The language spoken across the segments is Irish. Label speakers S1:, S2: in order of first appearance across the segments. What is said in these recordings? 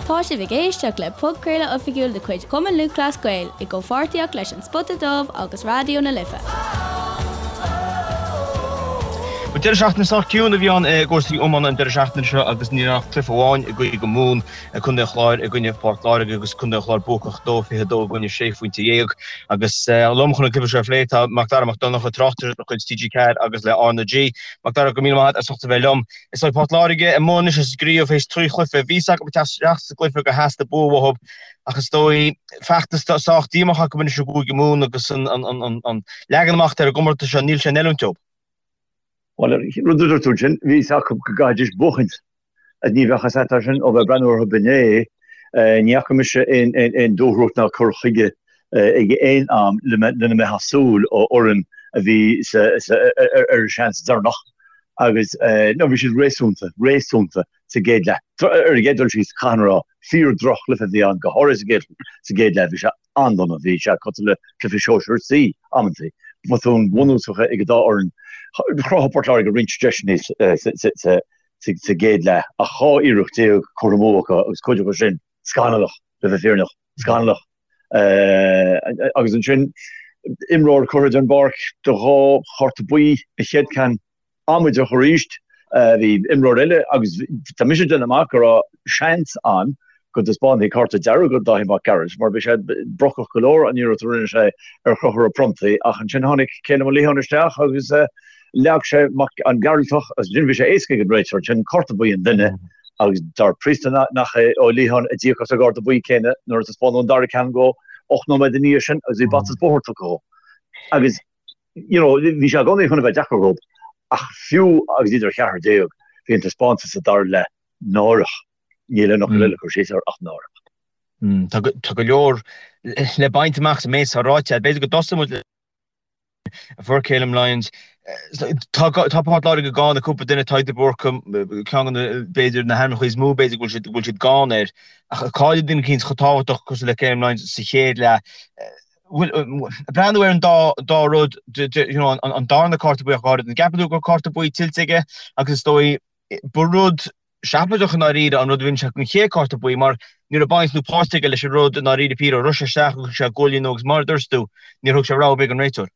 S1: Tá sibh ag éisteacht le podchraoladh oifigiúil de chuid Chumann Lúthchleas Gael i gcomhpháirtíocht leis An Spota Dubh agus Raidió na Life.
S2: Bhuel, deireadh seachtaine sách ciúin a bhí ann i gcúrsaí iomána an deireadh seachtaine seo agus ní raibh ach cluiche amháin i gCúige Mumhan, Contae an Chláir i gcoinne Phort Láirge agus Contae an Chláir buacach 2-22 i gcoinne 16 phointe. Agus liom chun an cluiche seo a phlé tá Macdara Mac Donncha, tráchtaire de chuid TG4 agus le RnaG. Macdara, go raibh míle maith agat as ucht a bheith liom. Is dóigh Port Láirge amuigh anois as an gcraobh théis 3 chluiche. Bhí fhios acu ag teacht isteach sa gcluiche gur theastaigh bua uathu ach is dóigh feachtas sách díomách acu anois i gCúige Mumhan agus an leagan amach atá ar an gcomórtas seo, níl sé in oiriúint dóibh.
S3: Bhuel, rud a dúirt tú ansin, bhí fhios acu go gcaithfidís buachaint. Ní bheadh fhios agat é sin ó bheith ag breathnú orthu inné. Ní fhaca mise aon dúthracht ná cur chuige ag aon am lena mbeifeá ag súil ó fhoireann a bhí ar a seans deireanach agus nó bhí siad réasúnta, réasúnta sa gcéad leath. Ar an gcéad dul síos, caithfidh mé a rá, fíor droch-chluiche a bhí ann, go háirithe sa gcéad leath. Bhí sé an-dona, bhí sé cosúil le cluiche sóisear C amantaí. Botúin bhunúsacha ag an dá fhoireann. Chruthaigh Port Láirge roinnt deiseanna sa gcéad leath ach 12 iarracht curtha amú acu agus cuid acu sin scannalach, le bheith fírinneach, scannalach. Agus ansin imreoir curtha den bpáirc do dhá chárta buí, an chéad ceann amaideach arís. Bhí imreoir eile agus tá mise ag déanamh amach go raibh seans ann go dtaispeánfaí cárta dearg do Dáithí Mac Gearailt mar bhí sé brocach go leor an iarracht a rinne sé ar Chonchúr Ó Pronntaigh ach ansin tháinig Calum Ó Liatháin isteach agus leag sé an Gearaltach agus ansin bhí sé éasca ag an réiteoir ansin cárta buí an duine agus dar príosta nach é Ó Liatháin a d'íoc as an gcárta buí céanna nuair a taispeánadh an dara ceann dhó 8 nóiméad ina dhiaidh sin agus bhí bata is bóthar tugtha dhó. Agus you know, bhí sé i gcónaí chun a bheith deacair dhóibh ach fiú agus iad ar cheathrar déag, bhí an taispeántas sa dara leath náireach. Níl aon fhocal eile le cur síos air ach náireach.
S2: Tá go leor le baint amach sa méid atá ráite. B'fhéidir go dtosóidh muid le fuair Calum Lyons. Tá Port Láirge gann ar cúpla duine, Tadhg de Búrca, ceann de na, b'fhéidir, na hainmneacha is mó b'fhéidir go bhfuil siad gann air. Ach cailleadh duine eicínt chomh tábhachtach cosúil le Calum Lyons sa chéad leath. Bhuel, breathnú ar an dá dá rud, you know, an darna cárta buí ach go háirid, an gceapann tú go raibh cárta buí tuillte aige agus is dóigh ba rud seafóideach i ndáiríre an rud a rinne sé don chéad cárta buí mar ní raibh baint nó páirt aige leis an rud i ndáiríre píre, rith sé isteach agus thug sé gualainn dó agus mar a dúirt tú, níor thug sé rabhadh ar bith don réiteoir.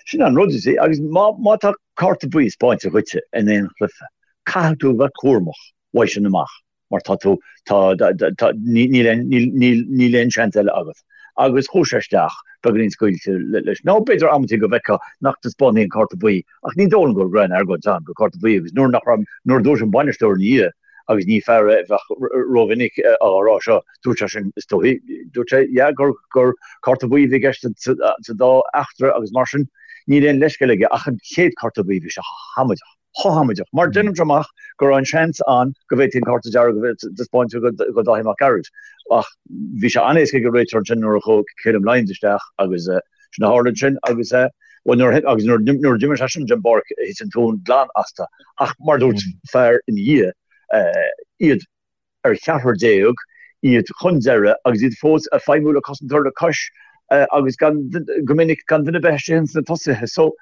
S3: Sin an rud, you see, agus má má tá cárta buí spáinte dhuitse in aon chluiche, caithfidh tú a bheith cúramach uaidh sin amach. mar tá tú, tá, tá, níl aon, níl, níl, níl aon seans eile agat. Agus chuaigh sé isteach, beagáinín scaoilte leis. Nó b'fhéidir amantaí go bhfeicfeá nach dtaispeánfaí an cárta buí, ach ní dóigh liom go raibh aon argóint ann gur cárta buí agus nuair nach raibh, nuair a dúirt an bainisteoir ina dhiaidh, agus ní fear é a bheadh rómhinic á rá seo, dúirt sé sin, is dóigh, dúirt sé, yeah, gur, gur cárta buí a bhí i gceist sa, sa dá eachtra agus mar sin, níl aon leithscéal aige ach an chéad cárta buí, bhí sé amaideach. chomh hamaideach, mar déanaimse amach go raibh an seans ann go bhféadfaí an cárta dearg a bheith taispeáinte do Dáithí Mac Gearailt ach bhí sé an-éasca ag an réiteoir ansin nuair a chuaigh Calum Lyons isteach agus sin a tharla ansin agus bhuel nuair agus nuair nuair a d'imigh seisean den bpáirc thit an tóin glan astu ach mar a dúirt fear ina dhiaidh iad ar cheathrar déag, iad chun deireadh agus iad fós ag feidhmiú le cosantóir le cois agus gan, go minic, gan duine ar bith istigh ins na tosaithe. So,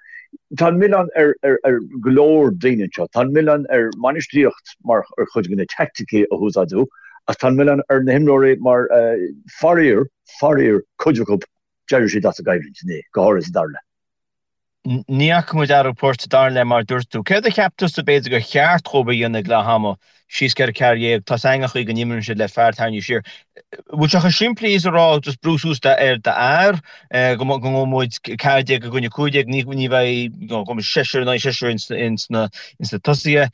S3: tá an milleán ar, ar, ar go leor daoine anseo. Tá an milleán ar bhainistíocht mar ar chuid de na teaicticí a húsáideadh ach tá an milleán ar na himreoirí mar, faraor, faraor, cuid acu, d'éirigh siad as an gcoimhlint inné, go háirithe sa dara leath.
S2: Ní fhaca muid athrú poirt sa dara leath mar a dúirt tú. Céard a cheap tusa b'fhéidir gur cheart dhóibh a dhéanamh ag leath ama, síos 4 14, tá's againn an chaoi go n-imríonn siad le fear tarraingthe siar. Bhfuil sé chomh simplí is a rá just brú suas ar d'fhear go ngabhfaidh muid 14 i gcoinne 15, ní ní bheidh you know, go mbeidh seisear in aghaidh seisear ins ins na ins na tosaithe,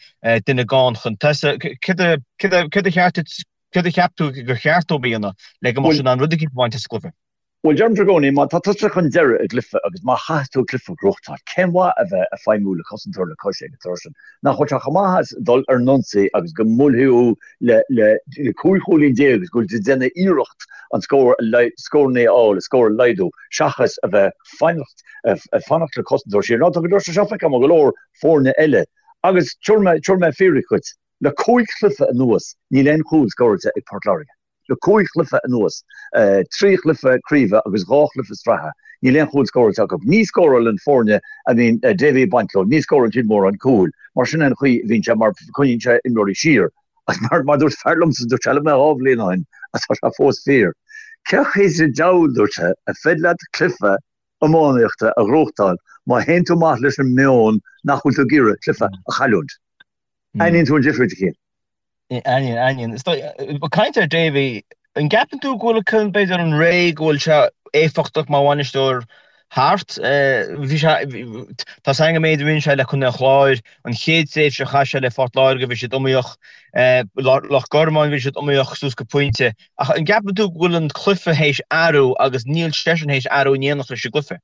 S2: duine gann chun tosaigh. Céard a céard a céard a cheart céard a cheap tú gur cheart dóibh a dhéanamh le go mbeadh siad in ann rud eicínt a bhaint as an gcluiche?
S3: Bhuel, deirimse i gcónaí, má tá tusa chun deiridh i gcluiche agus má chaithfidh tú cluiche a ghnóthachtáil, cén mhaith a bheith ag feidhmiú le cosantóir le cois ag an tráth sin? Nach bhfuil sé chomh maith as dul ar an ionsaí agus go mbuailfidh thú le le 15 chúilín agus go bhfuil tú ag déanamh iarracht an scór a scóranna a fháil, an scór a laghdú, seachas a bheith fanacht ag fanacht le cosantóir siar. Now, tá go leor sé seo feicthe agam ó go leor foirne eile agus tabharfaidh mé tabharfaidh mé fíric dhuit, le cúig chluiche anuas níl aon chúl scóráilte ag Port Láirge. Le cúig chluiche anuas, 3 chluiche craoibhe agus 2 chluiche sraithe, níl aon chúl scóráilte acu. Ní scórálann foirne a mbíonn Davy ag baint leo, ní scórálann siad mórán cúil. Mar sin é an chaoi a bhíonn sé, mar coinníonn sé imreoirí siar. Agus mar mar dúirt fear liomsa, dúirt sé liom é 2 bhliain ó shin, agus tá sé fós fíor, cé chaoi sa diabhal, dúirt sé, ar féidir leat cluiche iománaíochta a ghnóthachtáil má théann tú amach leis an meon nach bhfuil tú ag iarraidh cluiche a chailliúint? Aithníonn tú an difríocht, a Chian.
S2: Aithníonn, aithníonn. Is dóigh, ag caint ar Davy, an gceapann tú go bhfuil, b'fhéidir, an ré go bhfuil sé éifeachtach mar bhainisteoir thart? Bhí sé, tá 's againn an méid a rinne sé le Contae an Chláir, an chéad tréimhse a chaith sé le Phort Láirge bhí siad iomaíoch, Loch Garman bhí siad iomaíoch suas go pointe. Ach an gceapann tú go bhfuil an cluiche théis athrú agus níl seisean théis athrú in éineacht leis an gcluiche?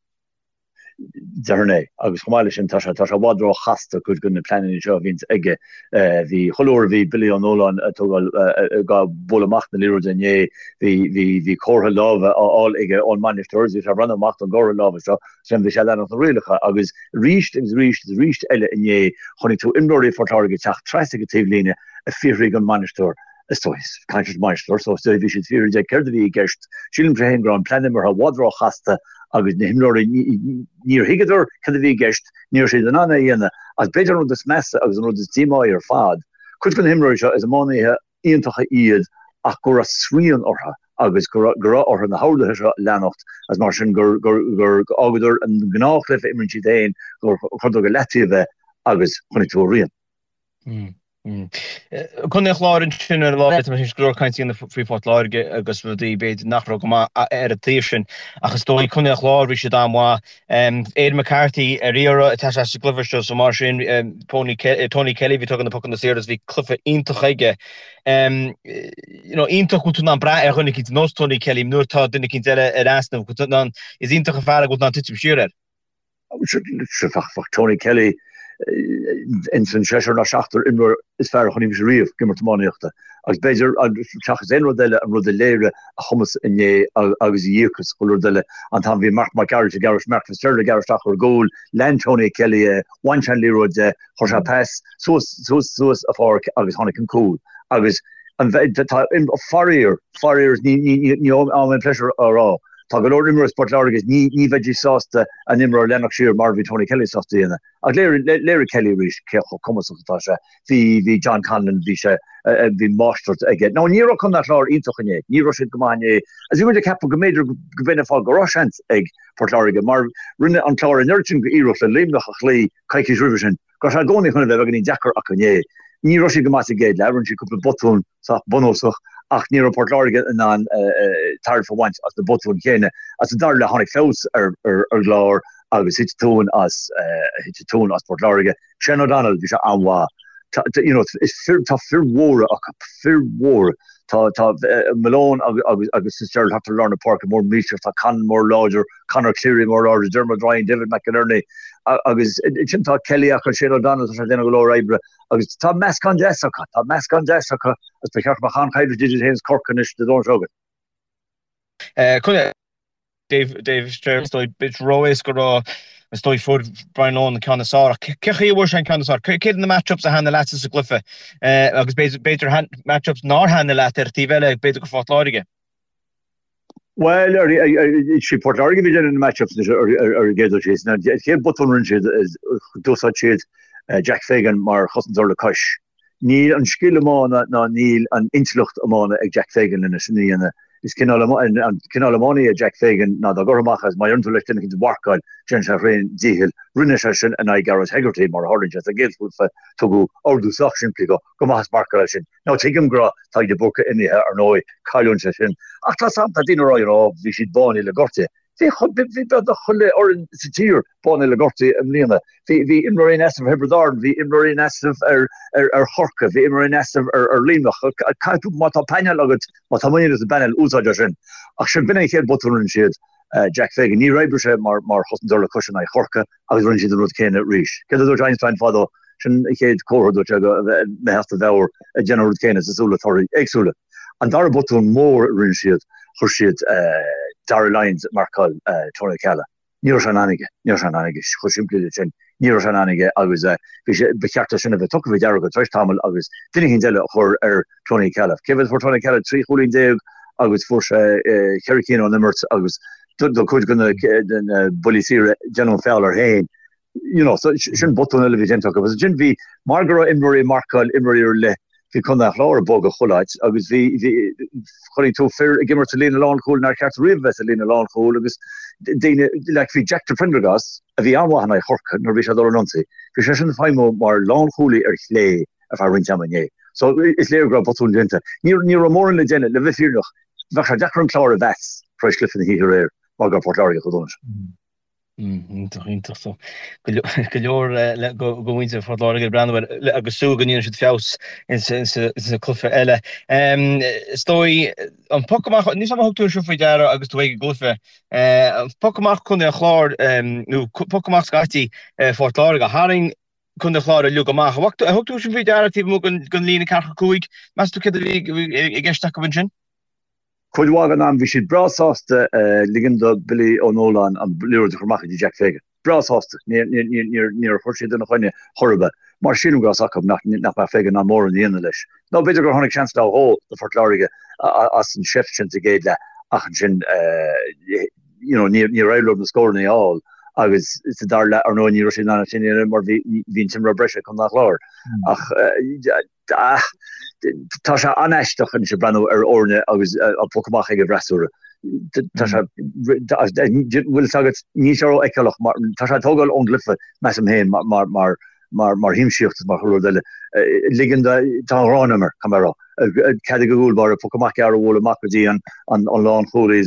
S3: Déarfainn é. Agus chomh maith leis sin, tá sé, tá sé i bhfad ró-chasta cuid de na pleananna seo a bhíonns aige. Bhí, chuile uair a bhí Billy Ó Nualláin ag tógáil, ag bualadh amach na liathróide inné, bhí, bhí, bhí comhartha láimhe á fháil aige ón mbainisteoir agus bhí sé ag breathnú amach don gcomhartha láimhe seo, sin bhí sé ag leanacht na rialacha. Agus arís agus arís agus arís eile inné, chonaic tú imreoirí Phort Láirge ag teacht trasna ag an taobhlíne ag fiafraí den mbainisteoir, Is dóigh, caint leis an mbainisteoir, so is dóigh bhí siad ag fiafraí de céard a bhí i gceist. Sílimse féin go raibh an plean imeartha i bhfad ró-chasta agus na himreoirí, níor thuigeadar céard a bhí i gceist, ní raibh siad in ann é a dhéanamh. Agus b'fhéidir an rud is measa agus an rud is díomáí ar fad, cuid de na himreoirí seo, is iománaithe iontacha iad ach go raibh srian orthu agus go raibh orthu na horduithe seo a leanacht agus mar sin gur fhágadar an gnáthchluiche a imríonn siad féin, gur chuireadar go leataobh é agus chonaic tú a rian.
S2: Contae an Chláir ansin ar an lá, tá mé tar éis go leor cainte a dhéanamh faoi Phort Láirge agus rudaí b'fhéidir nach raibh go maith ar an taobh sin ach is dóigh Contae an Chláir bhí siad an-mhaith. Aidan McCarthy ar iarraidh ag teacht isteach sa gcluiche seo so mar sin Tony Kelly bhí ag tógáil na pocanna saora agus bhí cluiche iontach aige. You know iontach go bhfuil tú in ann brath ar dhuine eicínt ar nós Tony Kelly nuair atá duine eicínt eile ar easnamh go bhfuil tú in ann is iontach an fear é go bhfuil tú in ann titim siar air.
S3: Bheadh Tony Kelly ins an seisear nó seachtar imreoir is fearr a chonaic mise riamh ag imirt iománaíochta agus b'fhéidir, seachas aon rud eile, an rud a léirigh a chumas inné agus a dhíocas, chuile rud eile, an t-am a bhí Mark Mac Gearailt ag gearradh, Mark Fitzgerald ag gearradh isteach ar an gcúl, lean Tony Kelly é, bhain sé an liathróid de, chuir sé pas suas, suas, suas an pháirc agus tháinig an cúl. Agus an, tá, faraor, faraor, ní, ní, ní, ní aon pléisiúr a rá, Tá go leor imreoirí Phort Láirge ní ní bheidís sásta a n-imreoir a leanacht siar mar a bhí Tony Kelly sásta a dhéanamh. Ach léirigh léirigh Kelly arís cé chomh cumasach atá sé. Bhí bhí John Conlon bhí sé bhí máistreacht aige. Now ní raibh Contae an Chláir iontach inné. Ní raibh siad go maith inné. Agus bhí muid ag ceapadh go mb'fhéidir go b'in an fáth go raibh seans ag Port Láirge mar rinne an Clár an oiread sin d'iarracht le Luimneach a chloí coicís roimhe sin go raibh sé i gcónaí chun a bheith beagáinín deacair acu inné. Ní raibh siad go maith sa gcéad leath, rinne siad cúpla botún sách bunúsach ach ní raibh Port Láirge in ann tairbhe a bhaint as na botúin chéanna. Sa dara leath tháinig feabhas ar an gClár agus thit tóin as thit tóin as Port Láirge. Shane O'Donnell, bhí sé an-mhaith. Tá you know is fir tá fir mhóra acu, fir mhóra. Tá tá Malone agus agus agus Fitzgerald thart ar lár na páirce mór millteach, tá Conlon mór láidir, Conor Cleary mór láidir, Dermot Ryan, David McInerney agus ansin tá Kelly acu, Shane O'Donnell, tá sé ag déanamh go leor oibre. Agus tá meascán deas acu, tá meascán deas acu agus ba cheart go mbeadh an-choimhlint idir iad féin is Corcaigh anois Dé Domhnaigh seo chugainn.
S2: Contae Dave Dave is dóigh bit ró-éasca a rá is dóigh fuair Brian Lohan an ceann is fearr ach cé chaoi a bhfuair sé an ceann is fearr? Céard na match-ups a thaitnigh leatsa sa gcluiche agus b'fhéidir match-ups nár thaitnigh leat ar an taobh eile b'fhéidir go Phort Láirge?
S3: Bhuel, sé Port Láirge a bhí ag déanamh na match-ups anois ar an gcéad dul síos. An chéad botún a rinne siad, d'úsáid siad Jack Fagan mar chosantóir le cois. Níl an scil iomána ná níl an intleacht iomána ag Jack Fagan lena sin a dhéanamh. Is cineál an cineál iománaí é Jack Fagan ná dá gcuirfeá amach é is má dheireann tú leis duine eicínt a mharcáil, déanann sé a thréan díchill. Rinne sé sin in aghaidh Gearóid Hegarty mar a tharlaíonn sé sa gcéad chluiche. Tugadh ordú sách simplí dó, gabh amach is marcáil é sin. Now tuigim go raibh Tadhg de Búrca imithe ar ndóigh, cailliúint é sin. Ach tá 's a'm, tá daoine ag rá you know bhí siad bánaithe le gortuithe. Bhí bhí beagnach chuile fhoireann sa tír bánaithe le gortuithe i mbliana. Bhí bhí imreoirí in easnamh ar Thiobraid Árann, bhí imreoirí in easnamh ar ar ar Chorcaigh, bhí imreoirí in easnamh ar ar Luimneach. Caithfidh tú, má tá painéal agat, má tá muinín agat sa bpainéal, úsáid é sin. Ach sin, b'in é an chéad botún a rinne siad. Jack Fagan, níor oibrigh sé mar mar chosantóir le cois in aghaidh Chorcaí agus rinne siad an rud céanna arís. Céard a dúirt Einstein fadó? Sin an chéad chomhartha, dúirt sé, go mbeifeá as do mheabhair ag déanamh an rud céanna is ag súil le torthaí éagsúla. An dara botún mór a rinne siad, chuir siad Darragh Lyons ag marcáil Tony O'Ceallaigh. Ní raibh sé in ann aige. Ní raibh sé in ann aige. Chomh simplí le sin. Ní raibh sé in ann aige agus bhí sé, ba cheart é sin a bheith tugtha faoi deara acu tar éis tamaill agus duine eicínt eile a chur ar Tony O'Ceallaigh. Cé mhéad a fuair Tony O'Ceallaigh? 13 chúilín agus fuair sé cheithre cinn ón imirt agus do cuid de na buillí saora déanadh feall air féin. You know, so sin botún eile a bhí déanta acu. Agus ansin bhí, mar go raibh imreoirí ag marcáil imreoirí ar leith. Bhí Contae an Chláir ag bogadh chuile áit agus bhí, bhí, chonaic tú fir ag imirt sa líne lánchúil nár cheart riamh a bheith sa líne lánchúil agus daoine, like bhí Jack de Prendergast, a bhí an-mhaith in aghaidh Chorcaí nuair a bhí sé ag dul ar an ionsaí, bhí seisean ag feidhmiú mar lánchúlaí ar chlé ar feadh roinnt ama inné. So is léir go raibh botún déanta. Ní, ní raibh mórán le déanamh, le bheith fírinneach, bheadh sé deacair an Clár a mheas tar éis cluiche na hoíche aréir mar go raibh Port Láirge chomh dona sin.
S2: Iontach, iontach. So, go leor go mhuintir Phort Láirge ag breathnú air agus súil go ndéanfaidh siad feabhas insa cluiche eile. Is dóigh, an poc amach, níl 's agam ar thug tú seo faoi deara agus tú ag an gcluiche, an poc amach Contae an Chláir, nó poc amach scaití Phort Láirge, tharraing Contae an Chláir uilig amach. Ar thug tú sin faoi deara taobh amuigh den líne ceathracha 5? Meas tú céard a bhí i gceist acu ansin?
S3: Cuid mhaith den am bhí siad breá sásta ligean do Billy Ó Nualláin an liathróid a chur amach go dtí Jack Fagan. Breá sásta. Níor chuir siad ina choinne chor ar bith. Mar sílim go raibh 's acu nach mbeadh Fagan in ann mórán a dhéanamh leis. Nó b'fhéidir gur tháinig seans nó dhó do Phort Láirge as an seift sin sa gcéad leath ach ansin you know níor éirigh leo na scóranna a fháil agus sa dara leath ar ndóigh ní raibh siad in ann sin a dhéanamh mar bhí an t-imreoir breise ag Contae an Chláir. Ach Tá sé an-aisteach anois ag breathnú ar fhoirne agus an poc amach ag an bhfreasúra. Tá sé, bhfuil fhios agat, níl sé rófheiceálach mar, tá sé ag tógáil ón gcluiche, measaim féin, mar, mar, mar, mar shiamsaíocht is mar chuile rud eile. Ligean do, tá an ghráin orm air, caithfidh mé a rá. Cead ag an gcúl báire poc amach gearr a bhualadh amach go dtí an, an, an lánchúlaí.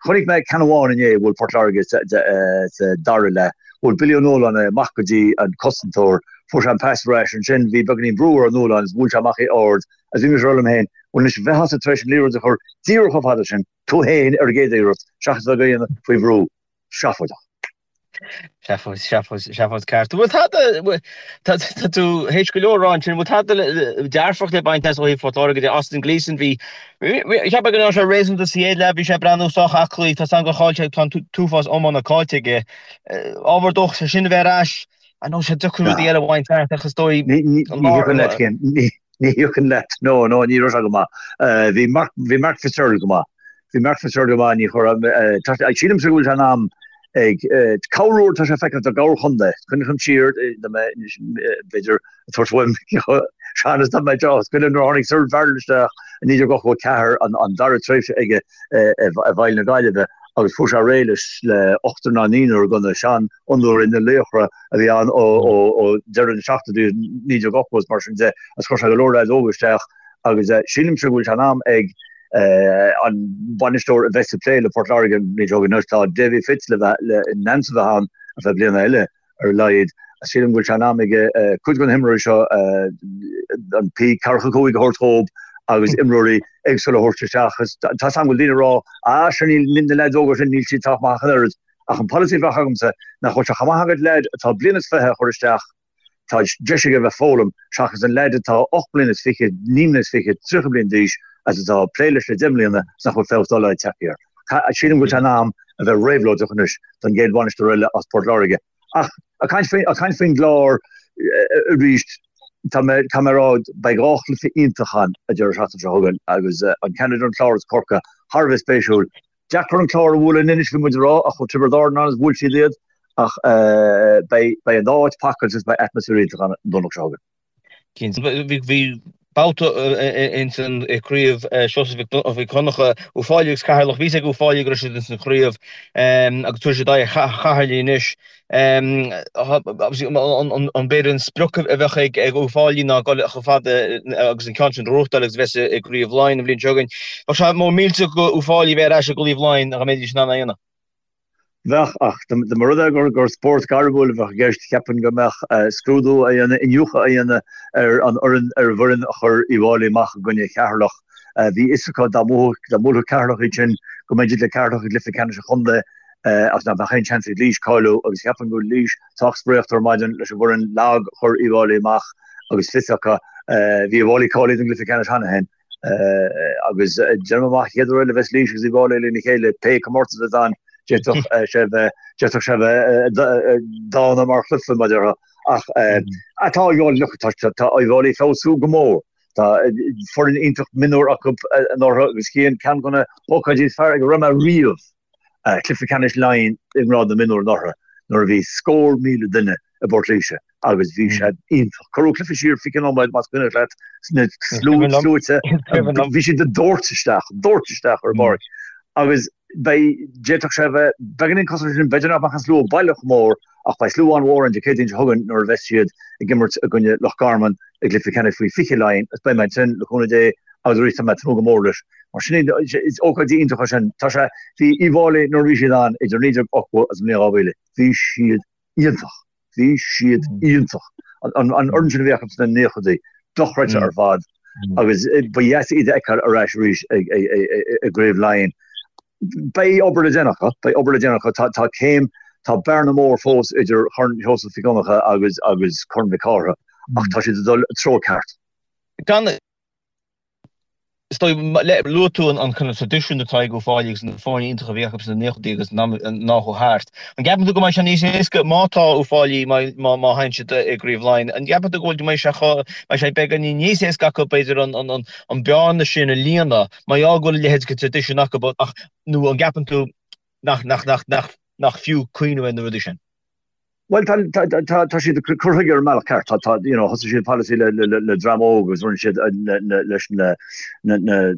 S3: Chonaic mé ceann amháin inné a bhuail Port Láirge sa, sa dara leath. Bhuail Billy Ó Nualláin é amach go dtí an cosantóir. Fuair sé an pas ar ais ansin, bhí beagáinín brú ar Ó Nualláin is bhuail sé amach é ard agus bhí mise ag rá liom féin, bhuel anois bheifeása tar éis an liathróid a chur díreach chomh fada sin, tú féin ar an gcéad iarracht seachas a bheith á dhéanamh faoi bhrú. Seafóideach.
S2: Seafóid, seafóid, seafóid ceart. Bhfuil tada, tá tú théis go leor a rá ansin, bhfuil tada dearfach le baint as ó thaobh Phort Láirge de? Austin Gleeson, bhí, cheap mé go raibh sé réasúnta sa chéad leath, bhí sé ag breathnú sách aclaí, tá 's agam gur chaill sé, tá an t-uafás iomána caillte aige. Ábhar dóchais é sin a bheith ar ais. I know sé deacair rudaí eile a bhaint as ach is dóigh
S3: Ní thiocfainn leat Cian, ní thiocfainn leat. No, no, ní raibh sé go maith. Bhí Mark, bhí Mark Fitzgerald go maith. Bhí Mark Fitzgerald go maith, ní chuir, sílimse go bhfuil sé in am ag corruair tá sé feicthe do gharchontae. Cuimhním siar, b'fhéidir, ag tabhairt uaim sean is dá mbeadh deá scoile nuair a tháinig Cyril Farrell isteach i 1984 an dara tréimhse aige i bhfeighil na Gaillimhe agus fuair sé réidh leis le ochtar ná naonúr de na seanfhondúirí na laochra a bhí ann ó deireadh na seachtóidí 1980 is mar sin de agus chuir sé go leor leaids óga isteach agus sílimse go bhfuil sé in am ag an bainisteoir a bheas ag plé le Port Láirge an bhliain seo chugainn anois tá Davy Fitz le bheith in ainm is a bheith ann ar feadh bliana eile. ar a laghad. Sílim go bhfuil sé in am aige cuid de na himreoirí seo an P45 a thabhairt dhóibh agus imreoirí éagsúla a thabhairt isteach. Tá 's agam go bhfuil daoine ag rá, ah sure níl na leaids óga sin, níl siad sách maith ach an oiread. Ach an polasaí a bheadh agamsa nach bhfuil sé chomh maith agat leaid atá bliain is 20 a chur isteach, tá deis aige a bheith ag foghlaim, seachas an leaid atá 8 mbliana is 20, 9 mbliana is 20, 30 bliain d'aois agus atá ag plé leis le 10 mbliana is nach bhfuil feabhas dá laghad tagtha air. Sílim go bhfuil sé in am a bheith réabhlóideach anois don gcéad bhainisteoir eile as Port Láirge. Ach ag caint faoin, ag caint faoin gClár arís, tá mé, caithfidh mé a rá, beidh dhá chluiche iontach ann an deireadh seachtaine seo chugainn agus an ceann idir an Clár agus Corcaigh thar a bheith spéisiúil. Deacair an Clár a bhualadh in Inis, bhí muid ag rá, ach chuaigh Tiobraid Árann ann agus bhuail siad iad. Ach beidh, beidh an dá áit pacáilte agus beidh atmaisféar iontach ann an Domhnach seo chugainn.
S2: Cinnte. Bhí babhta ins an chraobh Seosamh Mhic Dhonncha, Uíbh Fhailí agus Ceatharlach. Bhí a fhios ag Uíbh Fhailí go raibh siad ins an chraobh agus tabharfaidh siad aghaidh ar Cheatharlach anois. An b'fhéidir an sprioc a bheadh ag Uíbh Fhailí ná dul chomh fada agus an ceann sin a ghnóthachtáil agus a bheith i gCraobh Laighean an bhliain seo chugainn. Bheadh sé mór millteach do Uíbh Fhailí bheith ar ais i gCraobh Laighean dá mbeidís in ann é a dhéanamh.
S3: Bheadh, ach dá mba rud é gur spórt gairmiúil a bheadh i gceist, cheapfainn go mbeadh scrúdú á dhéanamh, iniúchadh á dhéanamh ar an fhoireann, ar an bhfoireann a chuir Uíbh Fháilí amach i gcoinne Cheatharlach. Bhí fhios acu dá mbuafadh, dá mbuailfeadh Ceatharlach iad sin, go mbeidís le Ceatharlach i gcluiche ceannais an chontae agus nach mbeadh aon seans ag Laois cáiliú agus cheapfainn go bhfuil Laois sách spréachta ar maidin leis an bhfoireann lag a chuir Uíbh Fháilí amach agus fios acu, bhí Uíbh Fháilí cáilithe don gcluiche ceannais cheana féin. Agus déanaim amach an chéad uair eile a bheas Laois agus Uíbh Fháilí lena chéile, pé comórtas atá ann, d'fhéadfadh sé bheith, d'fhéadfadh sé bheith dána mar chluiche, mar a déarfá. Ach tá Uíbh Fháilí, look, tá, tá Uíbh Fháilí ag feabhsú go mór. Tá foireann iontach mionúr acu anuraidh agus Cian, ceann de na hócáidí is fearr ag a raibh mé riamh, cluiche ceannais Laighean i ngrád na mionúr anuraidh nuair a bhí scór míle duine. i bPort Laoise agus bhí sé iontach. Cuireadh cluiche siar 20 nóiméad más cuimhin leat sna sluaite, bhí siad ag dóirt isteach, dóirt isteach ar an bpáirc agus beidh, d'fhéadfadh sé a bheith beagáinín cosúil leis sin, b'fhéidir nach mbeadh an slua baileach chomh mór ach beidh slua an-mhór ann Dé Céadaoin seo chugainn nuair a bheas siad ag imirt i gcoinne Loch Garman i gcluiche ceannais faoi 20 Laighean agus beidh mé ansin le cúnamh Dé agus arís tá mé ag tnúth go mór leis. Mar sin is ócáidí iontacha sin. Tá sé, bhí Uíbh Fhailí nuair a bhí siad ann idir 1980 agus an bhliain 2000, bhí siad iontach. Bhí siad iontach. An fhoireann sin a bhí acu sna naochadaí, dochreidte ar fad agus ba dheas iad a fheiceáil ar ais arís i gCraobh Laighean. Beidh obair le déanamh acu, beidh obair le déanamh acu. Tá tá céim, tá bearna mór fós idir Chorn Sheosaimh Mhic Dhonncha agus agus Corn Mhic Cárthaigh ach tá siad ag dul i treo ceart.
S2: Gan Is dóigh, luaigh tú an kind of traidisiún atá ag Uíbh Fhailí agus na foirne iontacha a bhí acu sna naochadaí agus an am atá thart. An gceapann tú go mbeidh sé níos éasca má tá Uíbh Fhailí, má má théann siad i gCraobh Laighean, an gceapann tú go bhfuil go mbeidh sé chomh, mbeidh sé beagáinín níos éasca acu b'fhéidir an an an an bearna sin a líonadh mar gheall go bhfuil a leithéid de traidisiún acu ach nó an gceapann tú nach nach nach nach nach fiú cuimhneamh ar na rudaí sin?
S3: Bhuel, tá, tá, tá, tá siad ag cur chuige ar an mbealach ceart. Tá, tá, you know, thosaigh siad polasaí le, le, le dream óg agus rinne siad le, le, leis na, na, na,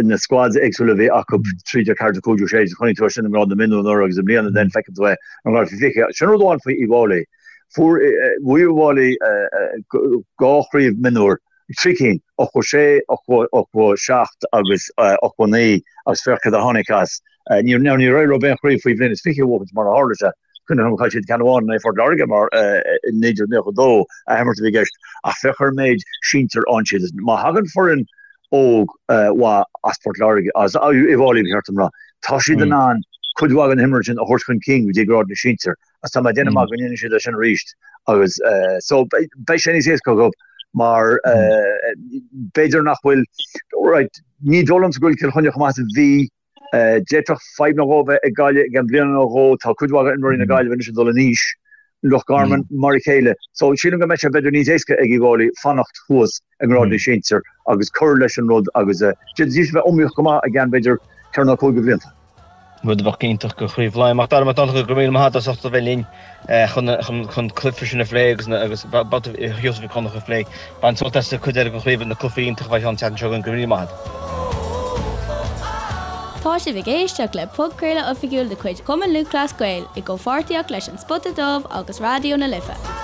S3: na squads éagsúla a bhí acu 13, 14, 15, 16, chonaic tú é sin i ngrád na mionúr anuraidh agus i mbliana then feiceann tú é i ngrád faoi 20. Sin rud amháin faoi Uíbh Fhailí. Fuair, bhuaigh Uíbh Fhailí dhá chraobh mionúr, trí cinn, 86, 87 agus 89 agus féach cad a tháinig as. Ní, now níor éirigh leo aon chraobh faoi bhliain is 20 a bhuachaint mar a tharla sé. Cuimhin liom chaill siad ceann amháin in aghaidh Phort Láirge mar i 1992 athimirt a bhí i gceist ach féach ar an méid sinsir ann siad. Má thagann foireann óg mhaith as Port Láirge, as Uíbh Fhailí ba cheart dom rá, tá siad in ann cuid mhaith den imreoirí sin a thabhairt chun cinn go dtí grád na sinsear agus tá mé ag déanamh amach go ndéanfaidh siad é sin arís agus so beidh sé níos éasca acu mar b'fhéidir nach bhfuil, right, ní dóigh liomsa go bhfuil Cill Chainnigh chomh maith is a bhí D'fhéadfadh fadhb nó dhó a bheith ag Gaillimh i gceann bliana nó dhó. Tá cuid mhaith d'imreoirí na Gaillimhe anois ag dul in aois. Loch Garman mar a chéile. So sílim go mbeidh sé b'fhéidir níos éasca ag Uíbh Fhailí fanacht thuas i ngrád na sinsear agus cur leis an rud agus d'fhéadfaidís a bheith iomaíoch go maith i gceann b'fhéidir 4 nó 5 de bhlianta.
S2: Rud a bheadh iontach do Chraobh Laighean. Mac Dara Mac Donncha, go raibh míle maith agat as ucht a bheith linn chun an cluiche sin a phlé agus agus babhta Sheosaimh Mhic Dhonncha a phlé. Bain sult as an chuid eile den chraobh, na cluichí iontacha a bheidh ann an tseachtain seo chugainn. Go raibh míle maith agat.
S1: Tá sibh ag éisteacht le podchraoladh oifigiúil de chuid Chumann Lúthchleas Gael i gcomhpháirtíocht leis An Spota Dubh agus Raidió na Life.